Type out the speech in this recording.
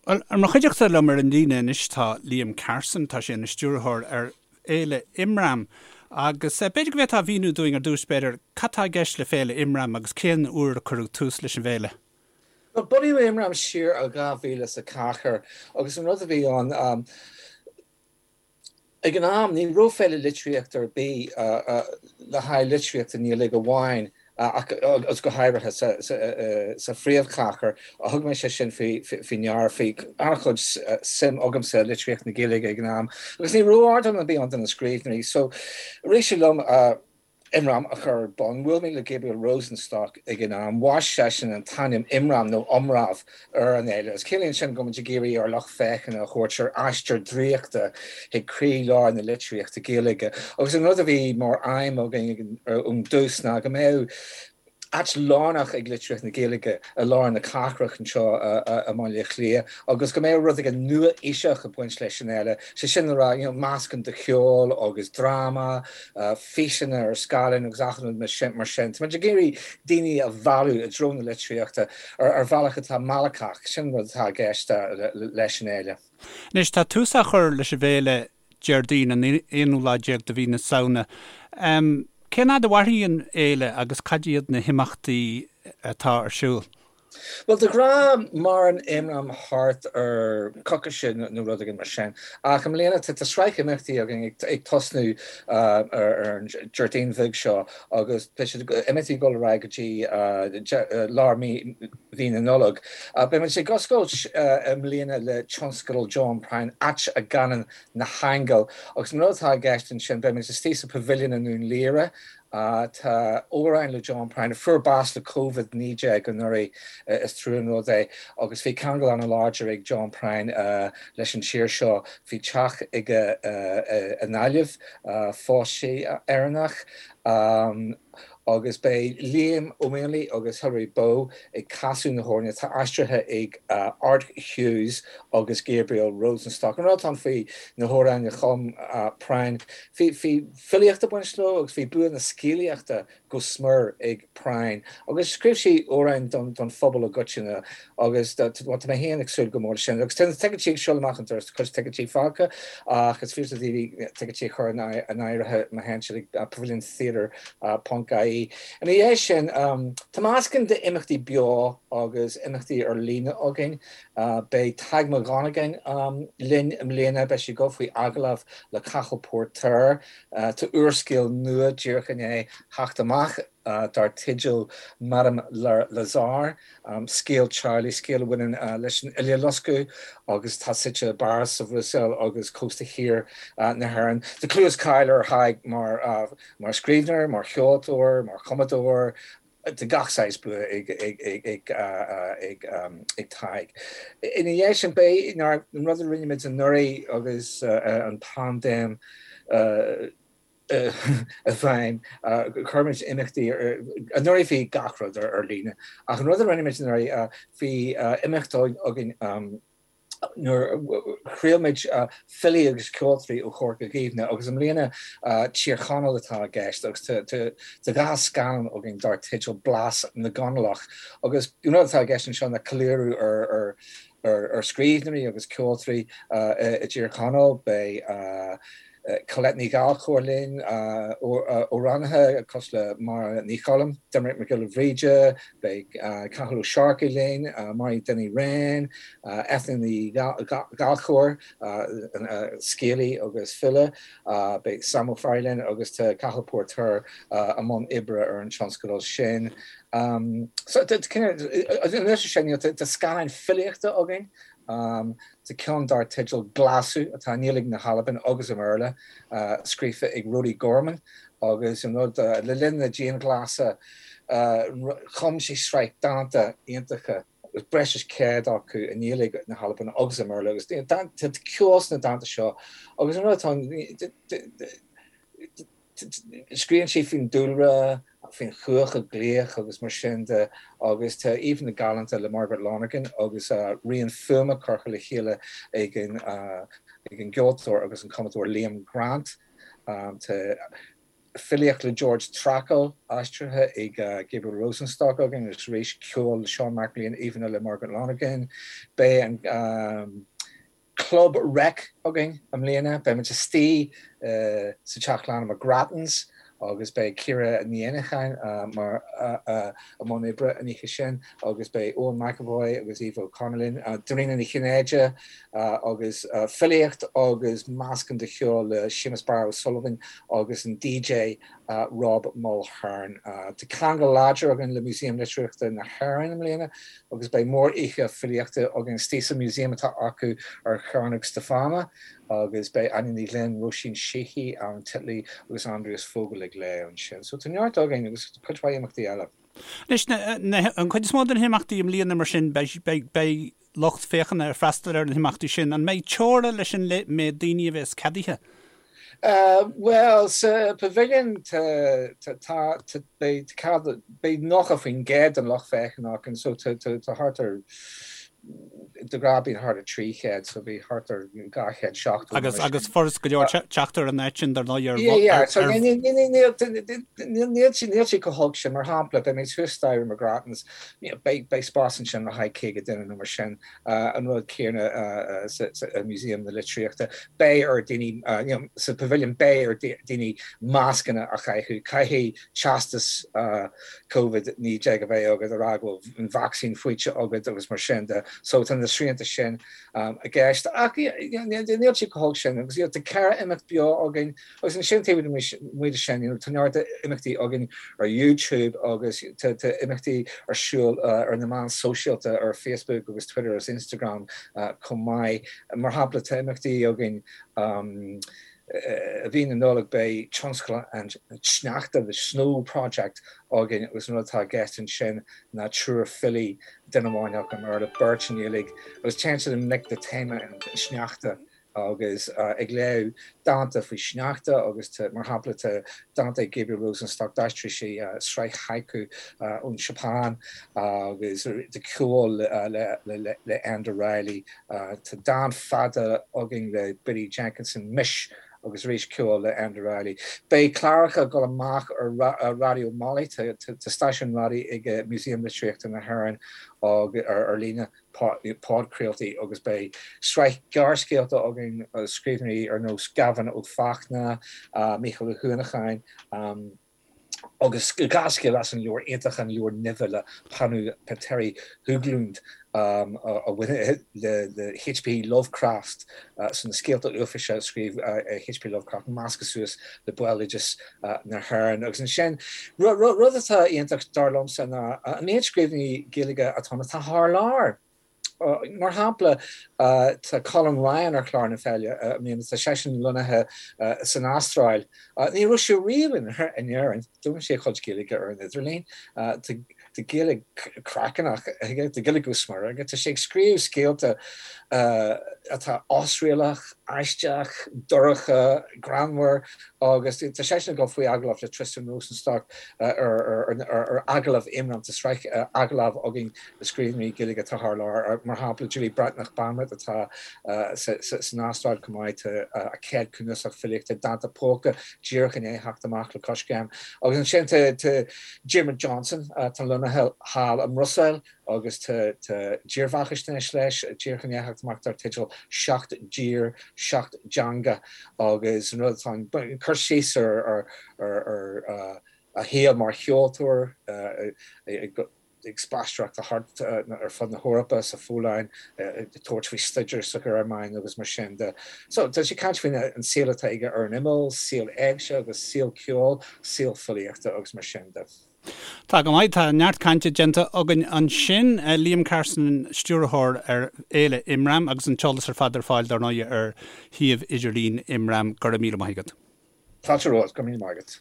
Bhuel, ar mo chuideachta liom ar an líne anois tá Liam Carson, tá sé ina stiúrthóir ar Fhéile Imram agus b'fhéidir go bhféadfá a mhíniú dúinn ar dtús b'fhéidir cad tá i gceist le Féile Imram agus cén uair a cuireadh tús leis an bhféile? Bhuel, bunaíodh Imram siar i 2004 agus an rud a bhí ann, Ag an am, ní raibh féile litríochta ar bith le haghaidh litríocht i nGaeilge amháin ach agus go háirithe sa phríomhchathair. Thug mé sé sin faoi ndeara. Bhí an-chuid suim agamsa i litríocht na Gaeilge ag an am agus ní raibh ardán ar bith ann do na scríbhneoirí. So, rith sé liom Imram a chur ar bun. Bhuail mé le Gabriel Rosenstock ag an am. Bhaist seisean an t-ainm Imram nó Iomramh ar an fhéile agus ciallaíonn sin go bhfuil muid ag iarraidh ár lucht féachana a thabhairt ar aistear draíochta chuig croí-lár na litríochta Gaeilge. Agus an rud a bhí mar aidhm againn ón dtús ná go mbeadh áit lárnach ag litríocht na Gaeilge i lár na cathrach anseo i mBaile Átha Cliath agus go mbeadh rud éigin nua-aoiseach ag baint leis an fhéile, sé sin le rá, you know, meascán de cheol agus dráma, físeanna ar scáileán agus achan rud mar sin. Tá muid ag iarraidh daoine a mhealladh i dtreo na litríochta ar bhealach atá meallacach, sin an rud atá i gceist leis an fhéile. Anois, tá tús á chur leis an bhféile Déardaoin an aonú lá déag de mhí na Samhna. Cén fhad a mhairfidh an fhéile agus cad iad na himeachtaí atá ar siúl? Bhuel, de ghnáth maireann Imram thart ar coicíse nó rud éigin mar sin. Ach i mbliana tá sraith imeachtaí againn ag tosnú ar an Déardaoin bheag seo agus beidh siad imeachtaí ag dul ar aghaidh go dtí lár mí na Nollag. Beidh muid ag oscailt i mbliana le tionscadal John Prine, Áit a gCanann na hAingil. Agus an rud atá i gceist ansin, beidh muid istigh sa Pavilion i nDún Laoghaire. Tá amhráin le John Prine, a fuair bás le Covid-19 anuraidh, is trua an rud é, agus bhí ceangal an-láidir ag John Prine leis an tír seo. Bhí teach aige i nGaillimh, phós sé Éireannach. Agus beidh Liam Ó Maonlaí agus Hilary Bow ag casadh na hamhráin atá aistrithe ag Art Hughes agus Gabriel Rosenstock. An rud atá ann faoi na hamhráin a chum Prine, bhí filíocht ag baint leo agus bhí bua na scéalaíochta go smior ag Prine agus scríobh sé amhráin don phobal i gcoitinne agus tá mé féin ag súil go mór leis sin. Agus tá na ticéidí ag siúl amach an doras, tá cuid ticéidí fágtha ach is féidir le daoine ticéidí a chur in áirithe má théann siad ag paviliontheatre ponc ie. Ina dhiaidh sin, tá meascán d'imeachtaí beo agus imeachtaí ar líne againn. Beidh Tadhg Mac Dhonnagáin linn i mbliana, beidh sé ag dul faoi agallamh le Cathal Póirtéir. Tá úrscéal nua díreach i ndiaidh theacht amach dar teideal Madame Lazare, scéal teaghlaigh, scéal a bhaineann leis an Uileloscadh agus atá suite i bPáras, sa Bhruiséil agus cósta thiar na hÉireann. Tá clú is cáil ar Thadhg mar scríbhneoir, mar cheoltóir, mar chumadóir, tá gach saghas bua ag Tadhg. Ina dhiaidh sin, beidh an rud a rinne muid anuraidh agus an paindéim, i bhfeidhm. Chuir muid imeachtaí, anuraidh bhí gach rud ar líne, ach an rud a rinne muid anuraidh, bhí imeacht againn nuair a thriail muid filí agus ceoltóirí ó Chorca Dhuibhne agus i mbliana Tír Chonaill atá i gceist agus tá dhá scannán againn dar teideal Blas na gConallach agus an rud atá i gceist anseo ná ceiliúradh ar ar scríbhneoirí agus ceoltóirí i dTír Chonaill. Beidh Colette Ní Ghallchóir linn, amhránaithe cosúil le Máire Ní Choilm, Doimnic Mac Giolla Bhríde, beidh Cathal Ó Searcaigh linn, Mary Dinny Wren, Eithne Ní Ghallchóir, scéalaí agus file, beidh Sam Ó Fearraigh linn agus tá Cathal Póirtéir i mbun oibre ar an tionscadal sin. So, anois sin, tá scannáin filíochta againn, Tá ceann dar teideal Glaschu atá i nGaeilge na hAlban agus i mBéarla, scríofa ag Rody Gorman agus an rud, le linn na dianghlasála, chum sé sraith dánta iontacha, breis is 100 acu i nGaeilge na hAlban agus i mBéarla agus tá ceol sna dánta seo agus an rud atá ann, Scríobhann sé faoin dúlra, faoin chuach ag glaoch agus mar sin de agus tá íomhánna galánta le Margaret Lonergan agus rian fuaime curtha le chéile ag an ag an gceoltóir agus an cumadóir Liam Grant. Tá. filíocht le George Trakl aistrithe ag Gabriel Rosenstock againn agus arís ceol le Seán Mac Léan, íomhánna le Margaret Lonergan. Beidh an Club Rec againn i mbliana. Beidh muid istigh sa Teach Lainne McGrattan's agus beidh Ciara Ní Éanacháin mar i mbun oibre an oíche sin agus beidh Eoin McEvoy agus Aoife O'Connor linn, Dairena Ní Chinnéide agus filíocht agus meascán de cheol le Séamus Barra O'Sullivan agus an DJ Rob Mulhern. Tá ceangal láidir againn le Músaem Litríochta na hÉireann i mbliana agus beidh mór-oíche filíochta againn istigh sa museum atá acu ar Chearnóg Stiofána agus beidh Áine Ní Ghlinn, Róisín Sheehy, Alan Titley agus Andreas Vogel ag léamh ansin. So tá neart againn agus cuid mhaith imeachtaí eile. Anois, an chuid is mó de na himeachtaí i mbliana mar sin, beidh lucht féachana ag freastal ar na himeachtaí sin. An mbeidh teora leis an méid daoine a bheas ceadaithe? Bhuel, sa Pavilion tá, tá, beidh cead, beidh 90% den lucht féachana againn, so tá thart ar, de ghnáth bíonn thart ar 300, so bhí thart ar 270 Agus, agus furast go leor teacht ar an áit sin dar ndóigh ar, Yeah, yeah, so níl, níl, níl sé chomh holc sin, mar shampla, beidh muid thuas staighre McGrattan's, beidh, beidh spás ansin le haghaidh 50 duine nó mar sin. An rud céanna sa Museum na Litríochta, beidh ar daoine, sa Pavilion, beidh ar daoine mascanna a chaitheamh, caithfidh teastas Covid-19 a bheith agat a rá go bhfuil an vacsaín faighte agat agus mar sin de. So tá na srianta sin i gceist. Ach níl sé chomh holc sin agus tá 4 imeacht beo againn. Agus ansin taobh amuigh de sin, tá neart imeachtaí againn ar YouTube agus tá imeachtaí ar siúl ar na meáin sóisialta, ar Facebook agus Twitter agus Instagram chomh maith. Mar shampla, tá imeachtaí againn i mhí na Nollag, beidh Tionscal an tSneachta, The Snow Project, againn agus an rud atá i gceist ansin ná triúr filí, duine amháin acu i mBéarla, beirt i nGaeilge, agus téann siad i ngleic le téama an tsneachta. agus ag léamh dánta faoi shneachta agus tá, mar shampla, tá dánta ag Gabriel Rosenstock, d'aistrigh sé sraith haiku ón Seapáin agus tá ceol le Enda Reilly, tá dán fada againn le Biddy Jenkinson, Mis, agus arís ceol le Enda Reilly. Beidh cláracha ag dul amach ar Raidió Molly, tá stáisiún raidió ag Músaem Litríochta na hÉireann ar líne. podchraoltaí agus beidh sraith gearrscéalta againn ó scríbhneoirí ar nós Gavin Ó Fachtna, Mícheál Ó hUanacháin agus dhá scéal as an leabhar iontach An Leabhar Nimhe le Panu Petteri Höglund a bhaineann le HP Lovecraft, so na scéalta uafáis a scríobh HP Lovecraft measctha suas le béaloideas na hÉireann. Agus ansin, rud atá iontach dar liomsa ná an méid scríbhneoirí Gaeilge atá ann atá thar lear. Mar shampla, tá Colm Ryan ar chlár na féile i mbliana, tá seisean lonnaithe san Astráil. Ní raibh sé riamh in Éirinn, d'fhoghlaim sé a chuid Gaeilge ar an idirlíon. Tá Gaeilge craiceannach aige, tá Gaeilge go smior aige, tá sé ag scríobh scéalta atá osréalach, aisteach, dorcha, greannmhar agus tá seisean ag dul faoi agallamh le Tristan Rosenstock ar Agallamh Imram, tá sraith agallamh againn le scríbhneoirí Gaeilge atá thar lear, mar shampla Julie Breathnach Banwait atá san Astráil chomh maith, tá a céad cnuasach filíochta, Dánta Póca, díreach i ndiaidh theacht amach le Coiscéim agus ansin tá Diarmuid Johnson, atá lonnaithe thall i mBruiséil agus tá dírbheathaisnéis leis díreach i ndiaidh theacht amach dar teideal Seacht dTír, Seacht dTeanga agus an rud atá ann, cur síos ar a shaol mar cheoltóir ag spaisteoireacht thart ar fud na hEorpa, sa Pholainn, ag tabhairt faoi staidéar sa Ghearmáin agus mar sin de. So, tá sé ag caint faoin an saol atá aige ar an imeall, saol éigse agus saol ceoil, saol filíochta agus mar sin de. Tá go maith, tá neart cainte déanta againn ansin. Liam Carson, Stiúrthóir ar Fhéile Imram agus an t-eolas ar fad ar fáil dar ndóigh ar shuíomh idirlín Imram. Go raibh míle maith agat. Fáilte romhat, go raibh míle maith agat.